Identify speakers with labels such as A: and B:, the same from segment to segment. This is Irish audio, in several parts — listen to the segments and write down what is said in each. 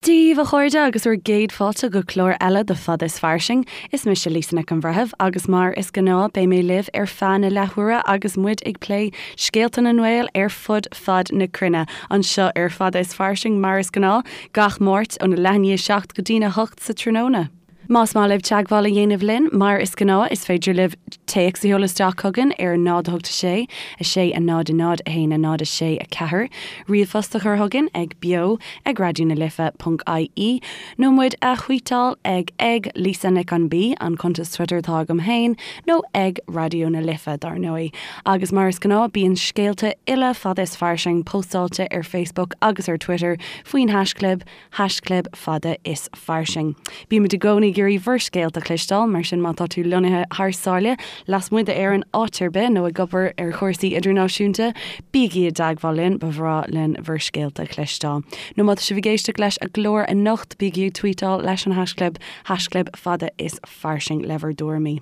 A: Dia daoibh a chairde agus bhur gcéad fáilte go clár eile de Fada is Fairsing. Is mise Lisa Nic an Bhreithimh agus mar is gnáth beidh mé libh ar feadh na leathuaire agus muid ag plé scéalta na nGael ar fud fad na cruinne anseo ar Fada is Fairsing mar is gnáth gach Máirt óna leath i ndiaidh 7 go dtína 8 sa tráthnóna. Más maith libh teagmháil a dhéanamh linn, mar is gnáth, is féidir libh téacs a sheoladh isteach chugainn ar 0 8 6 6 0 0 1 0 6 4, ríomhphost a chur chugainn ag beo ag raidió na life ponc ie, nó muid a thvuíteáil ag ag Lisa Nic an B, an cuntas Twitter atá agam féin, nó ag Raidió na Life, dar ndóigh. Agus mar is gnáth, bíonn scéalta uile Fada is Fairsing póstáilte ar Facebook agus ar Twitter faoin haischlib, haischlib fada is fairsing. Bímid i gcónaí ag iarraidh bhur scéalta a chloisteáil, mar sin má tá tú lonnaithe thar sáile, lasmuigh d'Éirinn, áit ar bith, nó ag obair ar chúrsaí idirnáisiúnta, bígí i dteagmháil linn, ba bhreá linn bhur scéalta a chloisteáil. Nó má tá sibh ag éisteacht leis an gclár anocht, bígí ag tweetáil leis an haischlib, haischlib fada is fairsing le bhur dtuairimí.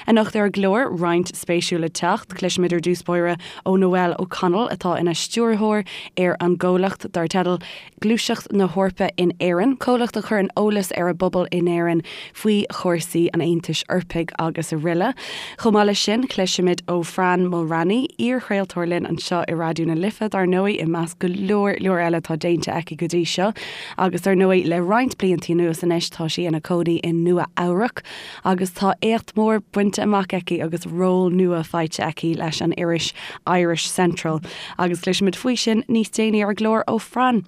A: Anocht ar an gclár, roinnt spéisiúil le teacht. Cloisfimid ar dtús báire ó Noelle O'Connell atá ina stiúrthóir ar an gcomhlacht dar teideal Gluaiseacht na hEorpa in Éirinn, comhlacht a chuireann eolas ar an bpobal in Éirinn faoi chúrsaí an Aontais Eorpaigh agus aroile. Chomh maith leis sin, cloisfimid ó Fran Mulraney, iar-chraoltóir linn anseo i Raidió na Life, dar ndóigh, i measc go leor leor eile atá déanta aici go dtí seo. Agus dar ndóigh, le roinnt blianta anuas anois tá sí ina cónaí i Nua Eabhrac. agus tá éacht mór bainte amach aici agus ról nua faighte aici leis an iris Irish Central agus cloisfimid faoi sin níos déanaí ar an gclár ó Fran.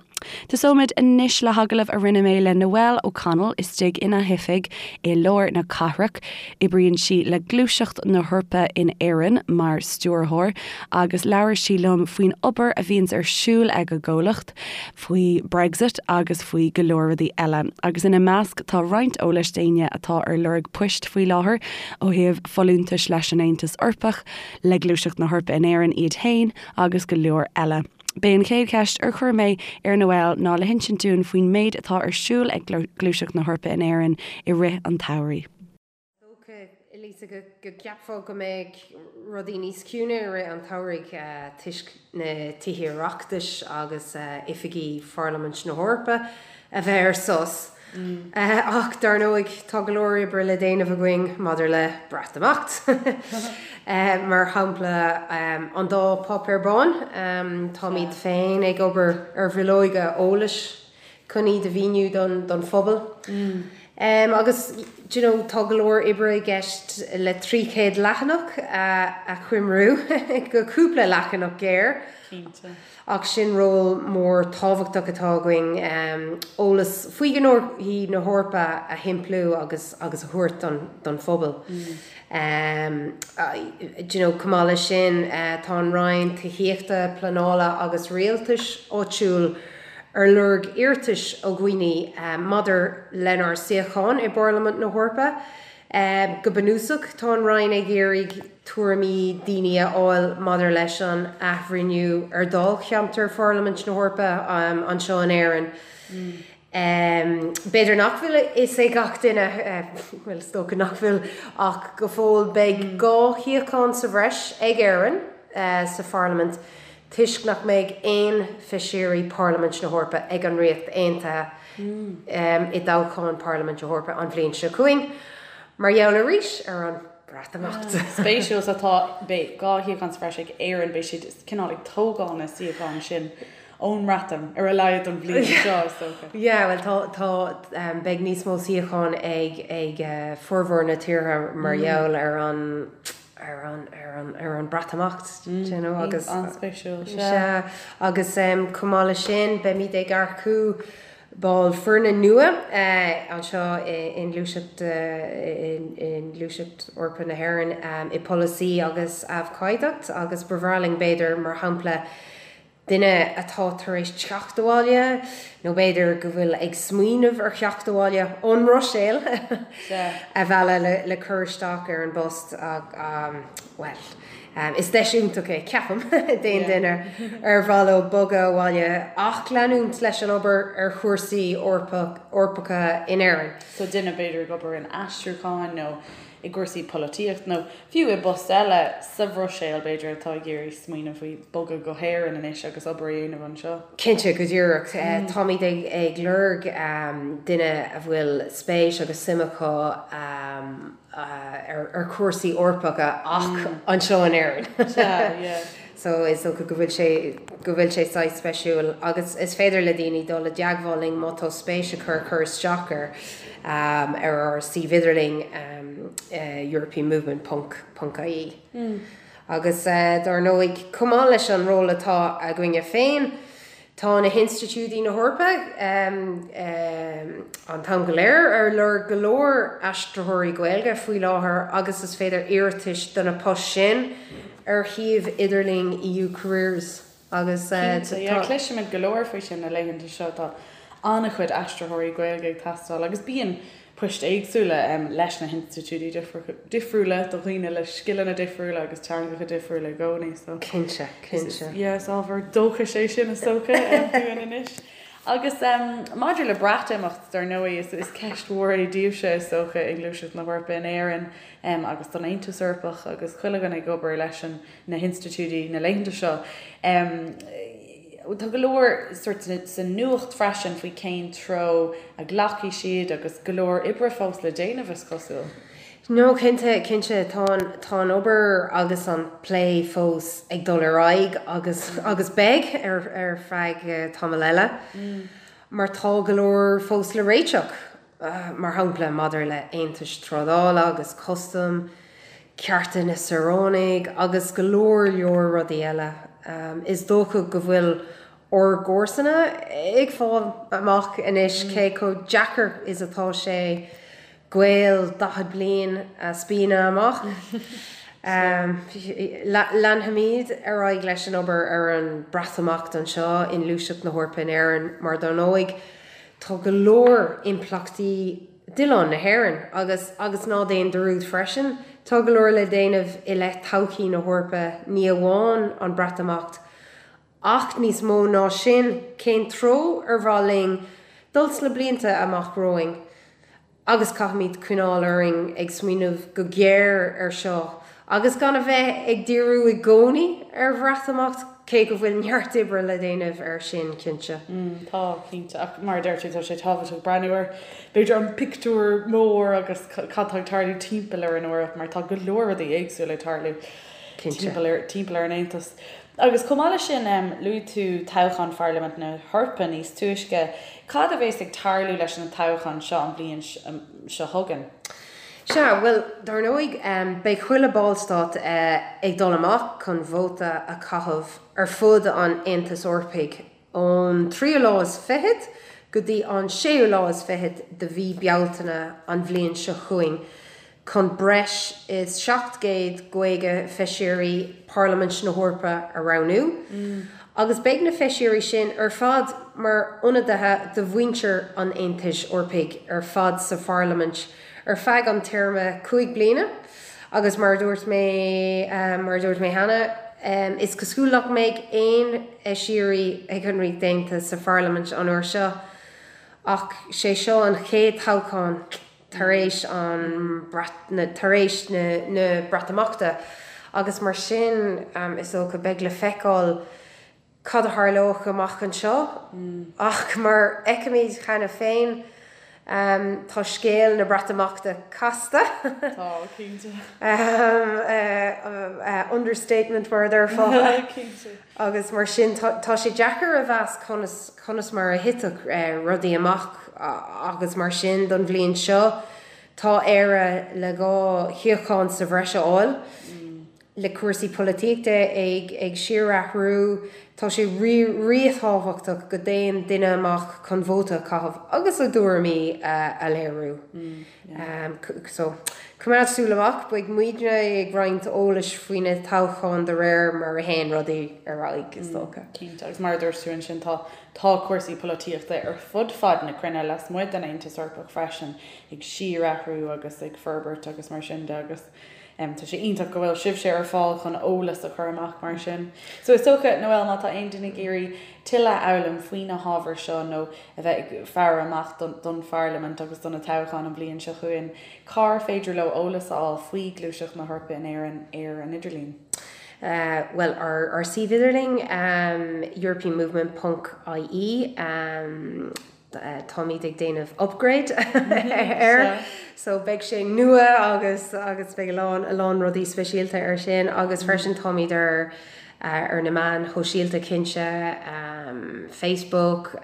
A: Tosóimid anois le hagallamh a rinne mé le Noelle O'Connell istigh ina hoifig i lár na cathrach. Oibríonn sí le Gluaiseacht na hEorpa in Éirinn mar stiúrthóir agus labhair sí liom faoin obair a bhíonns ar siúl ag a gcomhlacht. faoi Brexit agus faoi go leor rudaí eile, agus ina measc tá roinnt eolais d'éinne atá ar lorg poist faoi láthair ó thaobh folúntais leis an Aontas Eorpach, le Gluaiseacht na hEorpa in Éirinn iad féin agus go leor eile. B'é an chéad cheist ar chuir mé ar Noelle ná le hinsint dúinn faoin méid atá ar siúl ag Gluaiseacht na hEorpa in Éirinn i rith an tsamhraidh.
B: Dócha, Lisa, go gceapfá go mbeadh rudaí níos ciúine i rith an tsamhraidh toisc na Tithe Oireachtais agus oifigí Pharlaimint na hEorpa a bheith ar sos. Ach dar ndóigh, tá go leor oibre le déanamh againn maidir le Breatimeacht. Mar shampla, an dá Páipéar Bán, táimid féin ag obair ar bhileoga eolais chun iad a mhíniú don phobal. Agus do you know tá go leor oibre i gceist le 300 leathanach a choimriú go cúpla leathanach géar.
C: Cinnte.
B: Ach sin ról mór tábhachtach atá againn, eolas faoi ghnóthaí na hEorpa a shimpliú agus agus a thabhairt don phobal. Do you know chomh maith leis sin tá an Roinn Tithíochta, Pleanála agus Rialtais Áitiúil ar lorg iarratais ó dhaoine maidir lenár suíochán i bParlaimint na hEorpa. Go bunúsach, tá an Roinn ag iarraidh tuairimí daoine a fháil maidir leis an athbhreithniú ar dháilcheantar Pharlaimint na hEorpa anseo in Éirinn. B'fhéidir nach bhfuil a fhios ag gach duine, bhuel, is dócha nach bhfuil, ach go fóill beidh 2 shuíochán sa bhreis ag Éirinn sa Pharlaimint toisc nach mbeidh aon Feisirí Parlaimint na hEorpa ag an Ríocht Aontaithe i dtoghchán Parlaimint na hEorpa an bhliain seo chugainn, mar gheall arís ar an Breatimeacht.
C: Spéisiúil, so tá, beidh 2 shuíochán sa bhreis ag Éirinn, beidh siad cineál ag tógáil na suíochán sin ón mBreatain, ar a laghad don bhliain seo, is
B: dócha. Yeah, bhuel tá, tá, beidh níos mó suíochán ag, ag formhór na tíortha mar gheall ar an, ar an, ar an, ar an Breatimeacht, do you know, agus.
C: An-spéisiúil, sea. Sea,
B: agus chomh maith leis sin, beimid ag earcú ball foirne nua anseo i nGluaiseacht, i nGluaiseacht Eorpach na hÉireann i bpolasaí agus abhcóideacht agus ba bhreá linn b'fhéidir, mar shampla, duine atá tar éis teacht abhaile, nó b'fhéidir go bhfuil ag smaoineamh ar theacht abhaile ón mBruiséil, a mhealladh le cur isteach ar an bpost. Bhuel, Is deis iontach é, ceapaim, d'aon duine ar mhaith leo bogadh abhaile ach leanúint leis an obair ar chúrsaí Eorpacha in Éirinn.
C: So duine b'fhéidir ag obair in aistriúcháin nó i gcúrsaí polaitíochta nó fiú i bpost eile sa Bhruiséil b'fhéidir atá ag iarraidh smaoineamh faoi bogadh go hÉirinn anois agus obair a dhéanamh anseo.
B: Cinnte, go díreach. Táimid ag lorg duine a bhfuil spéis agus suim acu ar chúrsaí Eorpacha ach anseo in Éirinn.
C: Sea, yeah.
B: So is dócha go bhfuil sé, go bhfuil sé saghas speisiúil agus is féidir le daoine dul i dteagmháil linn má tá spéis acu cur isteach air ar ár suíomh idirlín europeanmovement ponc ponc ie. Agus dar ndóigh, chomh maith leis an ról atá againne féin, Tá na hinstitiúidí na hEorpa an t-am go léir ar lorg go leor aistritheoirí Gaeilge faoi láthair agus is féidir iarratais do na poist sin ar shuíomh idirlín EU Careers agus
C: tá. Cinnte, yeah, cloisimid go leor faoi sin na laethanta seo, tá an-chuid aistritheoirí Gaeilge ag teastáil agus bíonn poist éagsúla leis na hinstitiúidí difriúla do dhaoine le scileanna difriúla agus teangacha difriúla i gcónaí.
B: So Cinnte, cinnte.
C: Yeah, is ábhar dóchais é sin is dócha dúinn anois. Agus maidir le Breatimeacht, dar ndóigh, is is ceist mhór é daoibhse is dócha i nGluaiseacht na hEorpa in Éirinn agus don Aontas Eorpach agus chuile dhuine ag obair leis an na hinstitiúidí na laethanta seo. Tá go leor sórt sa nuacht freisin faoi cén treo a ghlacfaidh siad agus go leor oibre fós le déanamh, is cosúil.
B: No, cinnte, cinnte. Tá an, tá an obair agus an plé fós ag dul ar aghaidh agus, agus beidh ar, ar feadh tamall eile mar tá go leor fós le réiteach. mar shampla maidir le haontais trádála agus custaim, cearta na saoránaigh agus go leor leor rudaí eile. Is dócha go bhfuil ár gcomharsana ag fáil amach anois cé chomh deacair is atá sé gaol 40 bliain a spíonadh amach. Leanfaimid ar aghaidh leis an obair ar an Breatimeacht anseo i nGluaiseacht na hEorpa in Éirinn mar dar ndóigh Tá go leor impleachtaí d'oileán na hÉireann agus, agus ná déan dearúd freisin, tá go leor le déanamh i leith todhchaí na hEorpa, ní amháin an Breatimeacht ach níos mó ná sin, cén treo ar mhaith linn dul sna blianta amach romhainn. Agus caithfimid coinneáil orainn ag smaoineamh go géar air seo agus gan a bheith ag díriú i gcónaí ar Bhreatimeacht, cé go bhfuil neart oibre le déanamh air sin, cinnte.
C: Tá, cinnte. Ach mar a deir tú, tá sé tábhachtach breathnú ar, b'fhéidir, an pictiúr mór agus cad tá ag tarlú timpeall ar an Eoraip mar tá go leor rudaí éagsúla ag tarlú timpeall ar, timpeall ar an Aontas. Agus chomh maith leis sin, luaigh tú toghchán Pharlaimint na hEorpa níos túisce. Cad a bheas ag tarlú leis na toghcháin seo an bhliain seo chugainn?
B: Sea, bhuel, dar ndóigh, beidh chuile ballstát ag dul amach chun vóta a chaitheamh ar fud an Aontais Eorpaigh ón tríú lá is fichead go dtí an séú lá is fichead de mhí Bealtaine an bhliain seo chugainn. chun breis is 750 Feisirí Pharlaimint na hEorpa a roghnú, agus beidh na Feisirí sin ar fad mar ionadaithe do mhuintir an Aontais Eorpaigh ar fad sa Pharlaimint ar feadh an téarma 5 bliana. Agus mar a dúirt mé mar a dúirt mé cheana, is cosúil nach mbeidh aon Fheisirí ag an Ríocht Aontaithe sa Pharlaimint an uair seo, ach sé seo an chéad toghchán. tar éis an tar éis na Breatimeachta agus mar sin is dócha beidh le feiceáil cad a tharlóidh amach anseo ach mar a fheicimid cheana féin tá scéal na Breatimeachta casta.
C: Tá, cinnte.
B: Understatement mar a déarfá.
C: Cinnte.
B: Agus mar sin tá sé deacair a mheas conas conas mar a thitfeadh rudaí amach agus mar sin don bhliain seo tá Éire le 2 shuíochán sa bhreis a fháil. Le cúrsaí polaitíochta ag ag síorathrú tá sé ríthábhachtach go dtéann duine amach chun vóta a chaitheamh agus a dtuairimí a léiriú. So, coimeád súil amach, beidh muidne ag roinnt eolais faoi na toghcháin de réir mar a théann rudaí ar aghaidh, is dócha.
C: Cinnte, agus mar a dúirt tú ansin, tá tá cúrsaí polaitíochta ar fud fad na cruinne, lasmuigh den Aontas Eorpach freisin, ag síorathrú agus ag forbairt agus mar sin de agus. Tá sé iontach go bhfuil sibhse ar fáil chun eolas a chur amach mar sin. So is dócha, Noelle, má tá aon duine ag iarraidh tuilleadh a fhoghlaim faoi na hábhair seo nó a bheith ag faire amach don Pharlaimint agus do na toghcháin an bhliain seo chugainn, cár féidir leo eolas a fháil faoi Gluaiseacht na hEorpa in Éirinn ar an idirlíon?
B: Bhuel, ár suíomh idirlín, europeanmovement ponc ie, táimid ag déanamh upgrade air so beidh sé nua agus agus beidh a lán a lán rudaí speisialta air sin agus freisin táimid ar ar na meáin shóisialta cinnte, Facebook,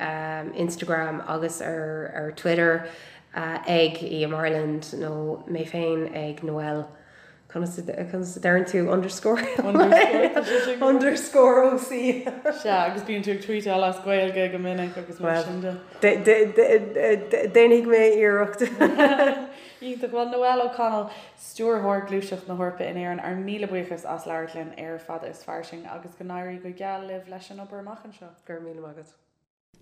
B: Instagram agus ar ar Twitter ag EM Ireland nó mé féin ag Noelle. Conas a deireann tú underscore? Underscore OC.
C: Sea, agus bíonn tú ag tweetáil as Gaeilge go minic agus mar sin de.
B: Déanfaidh mé iarracht.
C: Iontach. Bhuel, Noelle O'Connell, Stiúrthóir Gluaiseacht na hEorpa in Éirinn, ár míle buíochas as labhairt linn ar Fada is Fairsing agus go n-éirí go geal libh leis an obair amach anseo.
B: Go raibh míle maith agat.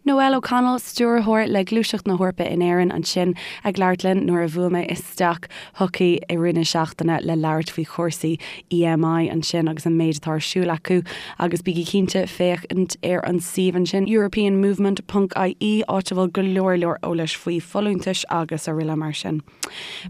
A: Noelle O'Connell, Stiúrthóir le Gluaiseacht na hEorpa in Éirinn ansin ag labhairt linn nuair a bhuail mé isteach chuici i rith na seachtaine le labhairt faoi chúrsaí EMI ansin agus an méid atá ar siúl acu agus bígí cinnte féachaint ar an suíomh ansin europeanmovement ponc ie áit a bhfuil go leor leor eolais faoi folúntais agus araile mar sin.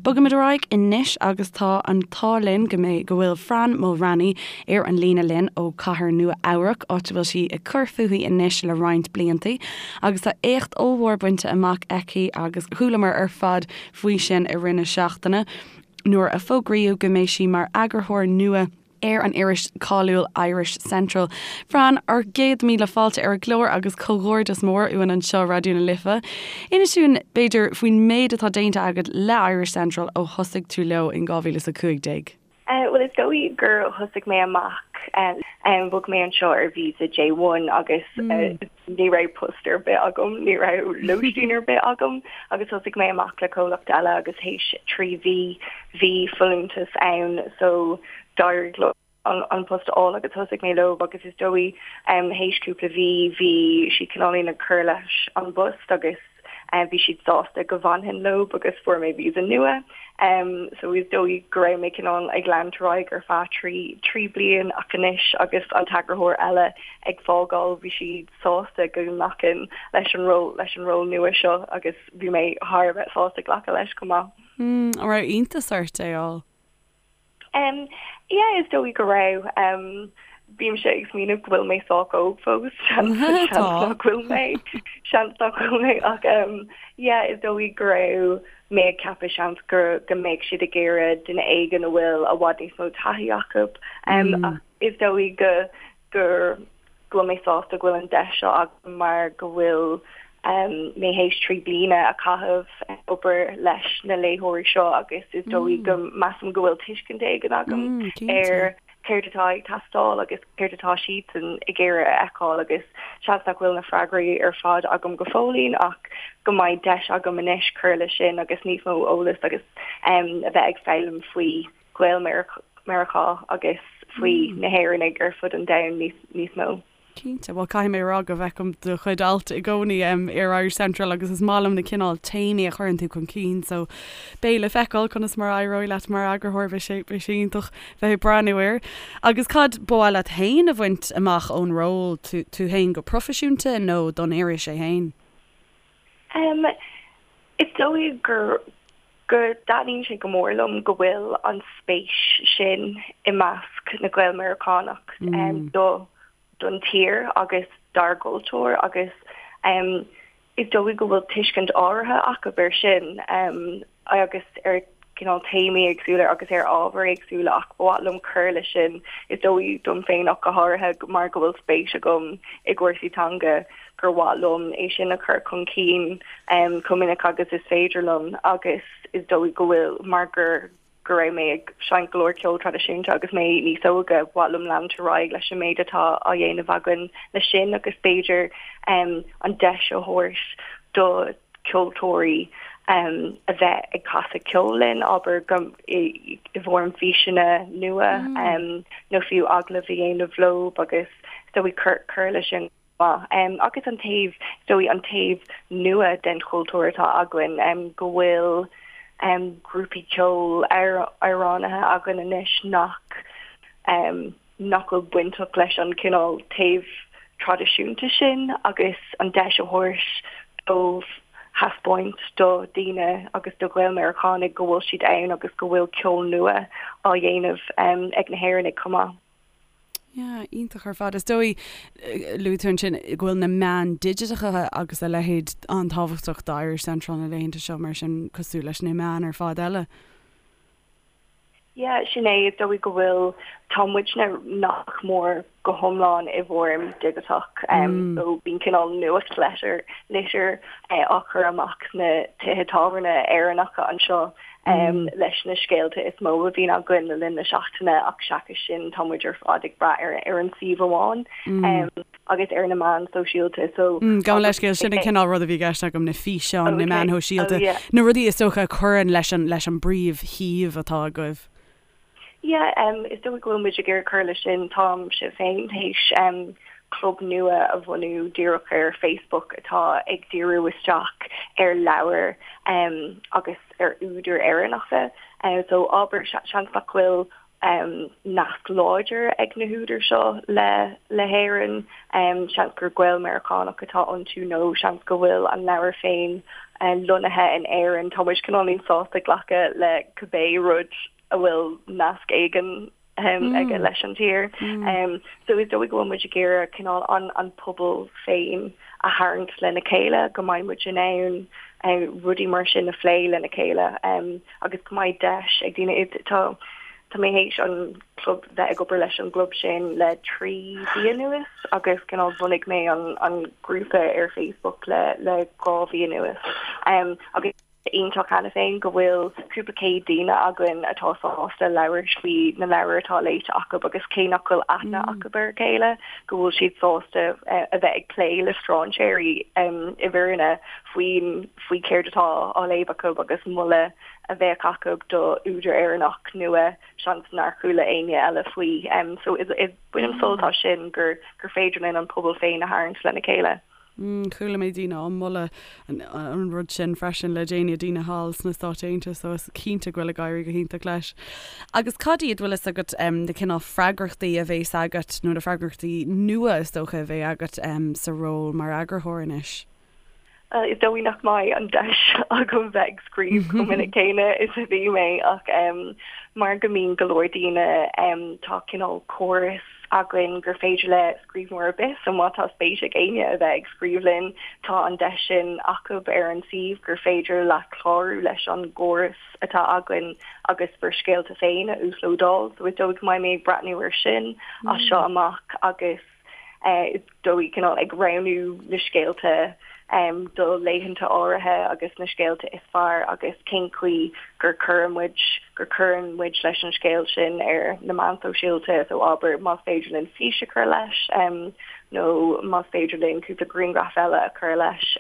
A: Bogaimid ar aghaidh anois agus tá an t-ádh linn go mbeidh, go bhfuil Fran Mulraney ar an líne linn ó Cathair Nua Eabhrac, áit a bhfuil sí ag cur fúithi anois le roinnt bliantaí agus tá éacht ollmhór bainte amach aici agus chualamar ar fad faoi sin i rith na seachtaine nuair a fógraíodh go mbeidh sí mar eagarthóir nua ar an iris cáiliúil Irish Central. Fran, ár gcéad míle fáilte ar an gclár agus comhghairdeas mór uainn anseo Raidió na Life. Inis dúinn, b'fhéidir, faoin méid atá déanta agat le Irish Central ó thosaigh tú leo in 2015.
D: Bhuel, is dóigh gur thosaigh mé amach, bhog mé anseo ar visa J1 agus ní raibh post ar bith agam, ní raibh lóistín ar bith agam agus thosaigh mé amach le comhlacht eile agus théis 3 mhí bhí folúntas ann so d'éirigh liom an post a fháil agus thosaigh mé leo agus is dóigh théis cúpla mhí bhí siad cineáilín ag cur leis an bpost agus bhí siad sásta go bhfanfainn leo agus fuair mé visa nua so is dóigh go raibh mé cineál ag leanúint ar aghaidh ar feadh 3 bliain ach anois agus an t-eagarthóir eile ag fágáil bhí siad sásta go nglacfainn leis an ról leis an ról nua seo agus bhí mé thar a bheith sásta glacadh leis chomh maith.
A: An raibh iontas ort é a fháil?
D: Um, yeah, is dóigh go raibh. Um, bímse ag smaoineamh go bhfuil mé sách óg fós, seans nach bhfuil mé, seans nach bhfuil mé ach um, yeah, is dóigh go raibh mé ag ceapadh seans go, go mbeadh siad ag iarraidh duine éigin a bhfuil i bhfad níos mó taithí acu. Um, mm. ach is dóigh go, gur go bhfuil mé sásta go bhfuil an deis seo agam mar go bhfuil mé théis 3 bliana a chaitheamh ag obair leis na léitheoirí seo agus is dóigh go measaim go bhfuil tuiscint éigin agam ar céard atá ag teastáil agus céard atá siadsan ag iarraidh a fheiceáil agus seans nach bhfuil na freagraí ar fad agam go fóillín ach go mbeidh deis agam anois cur leis sin agus níos mó eolas agus a bheith ag foghlaim faoi Ghael-Mheiriceá agus faoi na hÉireannaigh ar fud an domhain níos mó.
A: Cinnte. Bhuel, caithfidh mé a rá go bhfeicim do chuid alt i gcónaí ar Irish Central agus is maith liom na cineál téamaí a chuireann tú chun cinn so beidh le feiceáil conas mar a éireoidh leat mar eagarthóir, beidh sé, beidh sé iontach bheith ag breathnú air. Agus cad ba mhaith leat féin a bhaint amach ón ról, tú, tú féin go proifisiúnta nó don iris é féin?
D: Is dóigh gur go dtaitníonn sé go mór liom go bhfuil an spéis sin i measc na Gael-Meiriceánach do don tír agus dár gcultúr agus is dóigh go bhfuil tuiscint áirithe acu air sin agus ar cineál téamaí éagsúla agus ar ábhair éagsúla ach ba mhaith liom cur leis sin is dóigh dom féin ach go háirithe mar go bhfuil spéis agam i gcúrsaí teanga gur mhaith liom é sin a chur chun cinn chomh minic agus is féidir liom agus is dóigh go bhfuil mar gur go raibh mé ag seinnt go leor ceol traidisiúnta agus mé níos óige, ba mhaith liom leanúint ar aghaidh leis an méid atá á dhéanamh againn leis sin agus b'fhéidir an deis a thabhairt do ceoltóirí a bheith ag casadh ceoil linn, abair, go i bhfoirm físeanna nua nó fiú agallamh a dhéanamh leo agus is dóigh cur cur leis sin maith. Agus an taobh, is dóigh, an taobh nua den chultúr atá againn, go bhfuil. grúpaí ceoil, amhránaithe againn anois nach nach bhfuil bainteach leis an cineál taobh traidisiúnta sin agus an deis a thabhairt dóibh thaispeáint do dhaoine agus do Ghael-Mheiriceánaigh go bhfuil siad ann agus go bhfuil ceol nua á dhéanamh ag na hÉireannaigh chomh maith.
A: Yeah, iontach ar fad. Is dóigh, luaigh tú ansin go bhfuil na meáin digiteacha agus a leithéid an-tábhachtach do Irish Central na laethanta seo mar sin cosúil leis na meáin ar fad eile.
D: Yeah, sin é, is dóigh go bhfuil, tá muidne nach mór go hiomlán i bhfoirm digiteach, so bíonn cineál nuachtlitir, litir á chur amach sna tithe tábhairne Éireannacha anseo leis na scéalta is mó a bhíonn againn le linn na seachtaine ach seachas sin tá muid ar fad ag brath ar ar an suíomh amháin agus ar na meáin sóisialta so
A: Gabh mo leithscéal, sin an cineál rud a bhí i gceist agam, na físeáin, na meáin shóisialta, na rudaí is dócha a chuireann leis an leis an bpríomhshuíomh atá agaibh.
D: Yeah, is dóigh go bhfuil muid ag iarraidh cur leis sin. Táimse féin théis club nua a bhunú díreach ar Facebook atá ag díriú isteach ar leabhair agus ar údair Éireannacha. So abair, seans nach bhfuil nasc láidir ag na húdair seo le le hÉirinn, seans gur Gael-Meiriceánach atá iontu nó seans go bhfuil an leabhar féin lonnaithe in Éirinn. Tá muid cineáilín sásta glacadh le cibé rud a bhfuil nasc éigin aige leis an tír. So is dóigh go bhfuil muid ag iarraidh cineál an an pobal féin a tharraingt lena chéile, go mbeidh muid in ann rudaí mar sin a phlé lena chéile agus go mbeidh deis ag daoine. Tá tá mé théis an club bheith ag obair leis an gclub sin le 3 mhí anuas agus cineál bhunaigh mé an an grúpa ar Facebook le le 2 mhí anuas agus iontach cheana féin go bhfuil cúpla céad daoine againn atá sásta labhairt faoi na leabhair atá léite acu agus cé nach bhfuil aithne acu ar a chéile, go bhfuil siad sásta a bheith ag plé le strainséirí i bhfírinne faoin faoi céard atá á léamh acu agus moladh a bheadh acu do údar Éireannach nua seans nár chuala éinne eile faoi. So is bainim sult as sin gur gur féidir linn an pobal féin a tharraingt lena chéile.
A: Chuala mé daoine á moladh an rud sin freisin le déanaí, daoine thall sna Stáit Aontaithe, so is cinnte go bhfuil ag éirí go hiontach leis. Agus cad iad, bhfuil fhios agat, na cineál freagrachtaí a bhéas agat, nó na freagrachtaí nua is dócha a bheidh agat sa ról mar eagarthóir anois?
D: Is dóigh nach mbeidh an deis agam bheith ag scríobh chomh minic céanna is a bhí mé ach mar go mbíonn go leor daoine, tá cineál córas againn gur féidir le scríbhneoir ar bith, so má tá spéis ag éinne a bheith ag scríobh linn, tá an deis sin acu ar an suíomh gur féidir leat clárú leis an gcóras atá againn agus bhur scéalta féin a uaslódáil. So is dóigh go mbeidh mé ag breathnú air sin as seo amach agus is dóigh cineál ag roghnú na scéalta do laethanta áirithe agus na scéalta is fearr agus cén chaoi gur cuireann muid gur cuireann muid leis an scéal sin ar na meáin shóisialta so abair más féidir linn fís a chur leis nó más féidir linn cúpla grianghraf eile a chur leis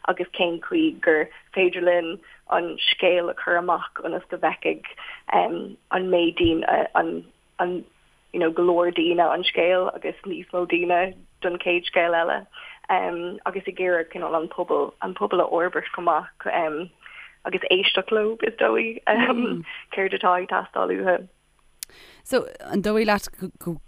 D: agus cén chaoi gur féidir linn an scéal a chur amach ionas go bhfeicfidh an méid daoine an an you know go leor daoine an scéal agus níos mó daoine don chéad scéal eile um, agus ag iarraidh cineál an pobal an pobal a fhorbairt chomh maith um, agus éisteacht leo is dóigh um, mm. céard atá ag teastáil uathu.
A: So an dóigh leat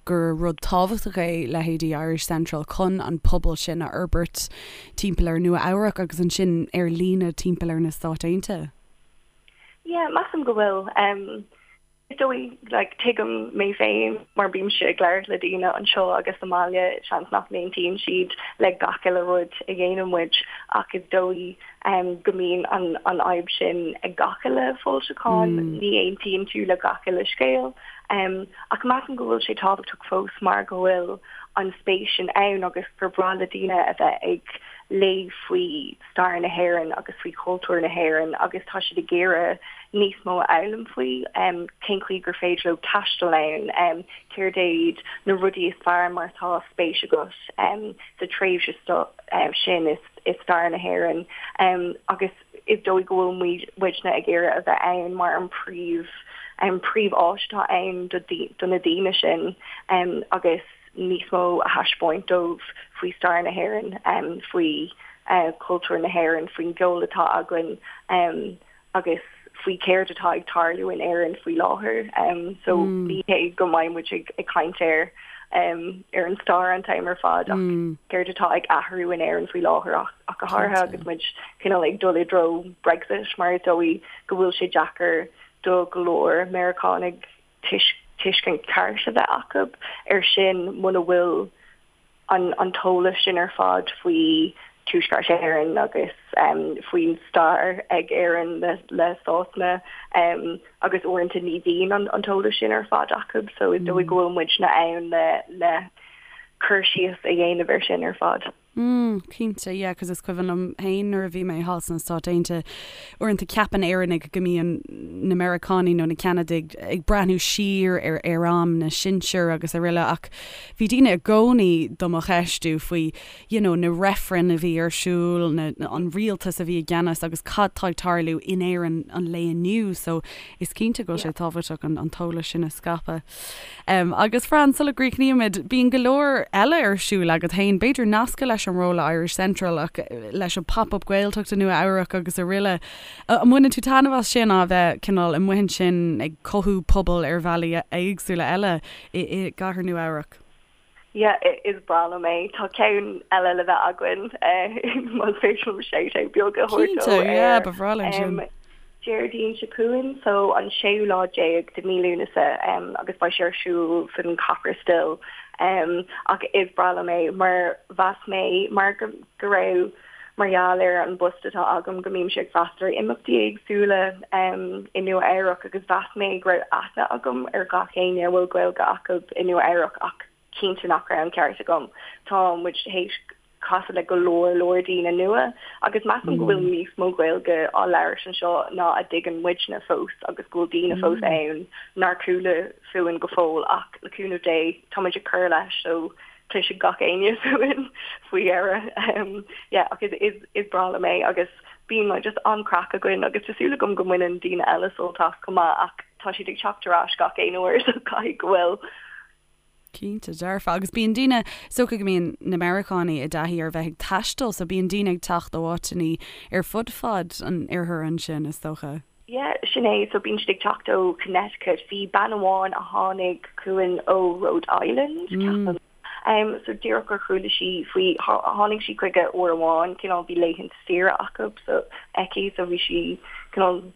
A: gur rud tábhachtach é leithéidí Irish Central chun an pobal sin a fhorbairt timpeall ar Nua Eabhrac agus ansin ar líne timpeall ar na Stáit Aontaithe?
D: Yeah, measaim go bhfuil. Um, Is dóigh, like, tuigim mé féin mar bímse ag labhairt le daoine anseo agus sa mbaile, seans nach n-aontaíonn siad le gach uile rud a dhéanann muid ach is dóigh go mbíonn an an fhadhb sin ag gach uile foilseachán, ní aontaíonn tú le gach uile scéal. Ach measaim go bhfuil sé tábhachtach fós mar go bhfuil an spéis sin ann agus gur breá le daoine a bheith ag léamh faoi stair na hÉireann agus faoi chultúr na hÉireann agus tá siad ag iarraidh níos mó a fhoghlaim faoi cén chaoi gur féidir leo taisteal ann, céard iad na rudaí is fearr má tá spéis agat sa tréimhse sin i stair na hÉireann agus is dóigh go bhfuil muidne ag iarraidh a bheith ann mar an príomh an príomh-áis atá ann do na daoine sin agus níos mó a thaispeáint dóibh faoi stair na hÉireann, faoi chultúr na hÉireann, faoin gceol atá againn agus. faoi céard atá ag tarlú in Éirinn faoi láthair. So ní hé go mbeidh muid ag caint ar ar an stair an t-am ar fad ach céard atá ag athrú in Éirinn faoi láthair ach go háirithe agus muid cineál ag dul i dtreo Brexit mar is dóigh go bhfuil sé deacair do go leor Meiriceánaigh tuiscint ceart a bheith acu ar sin muna bhfuil an an t-eolas sin ar fad faoi Tuaisceart Éireann agus faoin stair ag Éirinn le Sasana agus uaireanta ní bhíonn an t-eolas sin ar fad acu so is dóigh go bhfuil muidne ann le le cur síos a dhéanamh ar sin ar fad.
A: Mm, cinnte, yeah, 'cause is cuimhin liom féin nuair a bhí mé thall sna Stáit Aontaithe, uaireanta ceapann Éireannaigh go mbíonn na Meiriceánaigh nó na Ceanadaigh ag breathnú siar ar ar am na sinsear agus araile ach bhí daoine i gcónaí do mo cheistiú faoi you know na reifrinn a bhí ar siúl, na, an rialtas a bhí i gceannas agus cad tá ag tarlú in Éirinn an lae inniu so is cinnte go bhfuil sé tábhachtach an an t-eolas sin a scaipeadh. Agus Fran, sula gcríochnaímid, bíonn go leor eile ar siúl agat féin, b'fhéidir nasctha leis an ról le Irish Central ach leis an Pop-Up Gaeltacht i Nua Eabhrac agus araile. An mbaineann tú taitneamh as sin, a bheith cineál amuigh ansin ag cothú pobal ar bhealaí éagsúla eile i gcathair Nua Eabhrac?
D: Yeah, is breá liom é. Tá ceann eile le bheith againn, más féidir liom shout-out beag a thabhairt dó.
A: Cinnte, yeah, ba bhreá linn sin.
D: Déardaoin seo chugainn, so an séú lá déag de mí Lúnasa, agus beidh sé ar siúl san Copper Still. Ach is breá liom é mar mheas mé mar go raibh, mar gheall ar an bpost atá agam go mbímse ag freastal ar imeachtaí éagsúla i Nua Eabhrac agus mheas mé go raibh aithne agam ar gach éinne a bhfuil Gaeilge acu i Nua Eabhrac ach cinnte nach raibh an ceart agam. Tá muid théis casadh le go leor leor daoine nua agus measaim go bhfuil níos mó Gaeilge á labhairt anseo ná a dtuigeann muidne fós agus go bhfuil daoine fós ann nár chuala fúinn go fóill ach le cúnamh Dé tá muid ag cur leis so cloisfidh gach éinne fúinn faoi dheireadh. Yeah, ach is, is, is breá liom é agus bíonn like, just an-craic againn agus tá súil agam go mbaineann daoine eile sult as chomh maith ach tá siad ag teacht ar ais gach aon uair so caithfidh go bhfuil.
A: Cinnte, dearfa. Agus bíonn daoine, is dócha go mbíonn na Meiriceánaigh i dtaithí ar bheith ag taisteal so bíonn daoine ag teacht ó áiteanna ar fud fad an oirthir ansin, is dócha.
D: Yeah, sin é. So bíonn siad ag teacht ó Connecticut. Bhí bean amháin a tháinig chugainn ó Rhode Island, ceapaim. Um, so díreach gur chuala sí faoi, tháinig sí chuige uair amháin, cineál bhí laethanta saoire acu, so aici, so bhí sí cineál,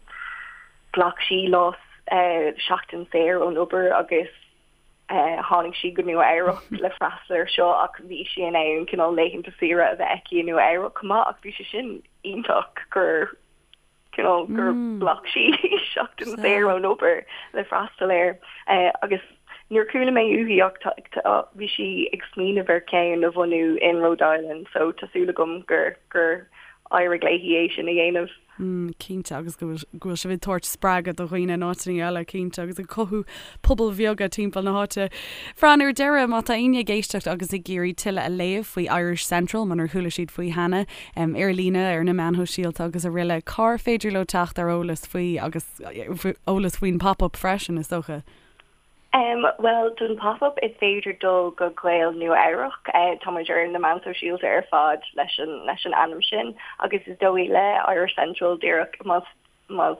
D: ghlac sí lá, eh, seachtain saor ón obair agus eh, tháinig sí go Nua Eabhrac le freastal ar seo ach bhí sí in ann cineál laethanta saoire a bheith aici i Nua Eabhrac chomh maith ach bhí sé sin iontach gur cineál gur ghlac sí seachtain saor ón obair le freastal air agus níor chuala mé uaithi ach bhí sí ag smaoineamh ar cheann a bhunú in Rhode Island so tá súil agam gur gur éirigh léi é sin a dhéanamh.
A: Cinnte, agus go bhfuil sibh ag tabhairt spreagadh do dhaoine in áiteanna eile, cinnte, agus ag cothú pobail bheaga timpeall na háite. Fran, ar deireadh, má tá éinne ag éisteacht agus ag iarraidh tuilleadh a léamh faoi Irish Central, munar chuala siad faoi cheana, ar líne, ar na meáin shóisialta agus araile, cár féidir leo teacht ar eolas faoi agus eolas faoin Pop-Up freisin, is dócha?
D: Bhuel, don Pop-Up is féidir dul go Gaeil Nua Eabhrac. Tá muid ar na meáin shóisialta ar fad leis an leis an ainm sin agus is dóigh le Irish Central díreach más más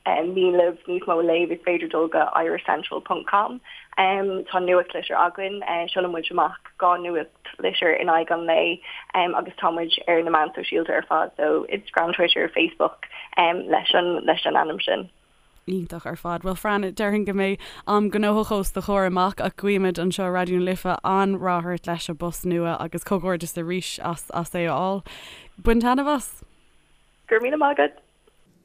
D: mian libh níos mó a léamh is féidir dul go irishcentral ponc com. Tá nuachtlitir againn, seolann muid amach 2 nuachtlitir in aghaidh an lae agus tá muid ar na meáin sóisialta ar fad so Instagram, Twitter, Facebook leis an leis an ainm sin.
A: Iontach ar fad. Bhuel Fran, déarfainn go mbeidh am gnóthach os do chomhair amach ach guímid anseo i Raidió na Life an-rath ort leis an bpost nua agus comhghairdeas arís as as é a fháil. Bain taitneamh as!
D: Go raibh míle maith agat!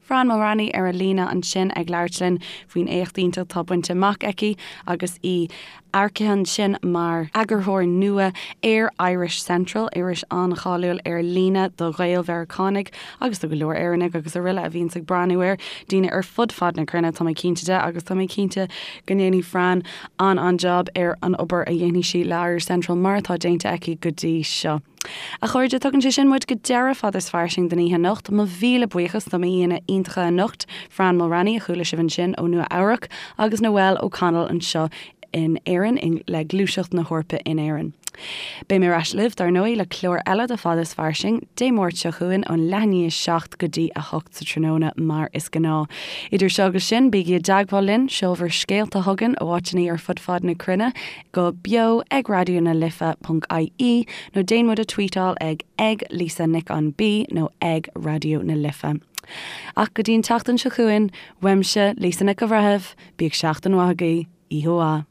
A: Fran Mulraney ar an líne ansin ag labhairt linn faoin éacht iontach atá bainte amach aici agus í earcaithe ansin mar eagarthóir nua ar Irish Central, iris an-cháiliúil ar líne do Ghael-Mheiriceánaigh agus do go leor Éireannaigh agus araile a bhíonns ag breathnú air, daoine ar fud fad na cruinne, tá mé cinnte de, agus tá mé cinnte go ndéanfaidh Fran an-an-jab ar an obair a dhéanfaidh sí le Irish Central mar atá déanta aici go dtí seo. A chairde, tugann sé sin muid go deireadh Fada is Fairsing don oíche anocht. Mo mhíle buíochas do m'aíonna iontacha anocht, Fran Mulraney, a chuala sibh ansin ó Nua Eabhrac, agus Noelle O'Connell anseo in Éirinn le Gluaiseacht na hEorpa in Éirinn. Beidh mé ar ais libh, dar ndóigh, le clár eile de Fada is Fairsing, Dé Máirt seo chugainn ón leath i ndiaidh 7 go dtí 8 sa tráthnóna, mar is gnáth. Idir seo agus sin, bígí i dteagmháil linn, seol bhur scéalta chugainn ó áiteanna ar fud fad na cruinne go beo ag raidió na life ponc ie nó déan muid a tweetáil ag ag Lisa Nic an B nó ag Raidió na Life. Ach go dtí an tseachtain seo chugainn, uaimse, Lisa Nic an Bhreithimh, bíodh seachtain mhaith agaibh, oíche mhaith.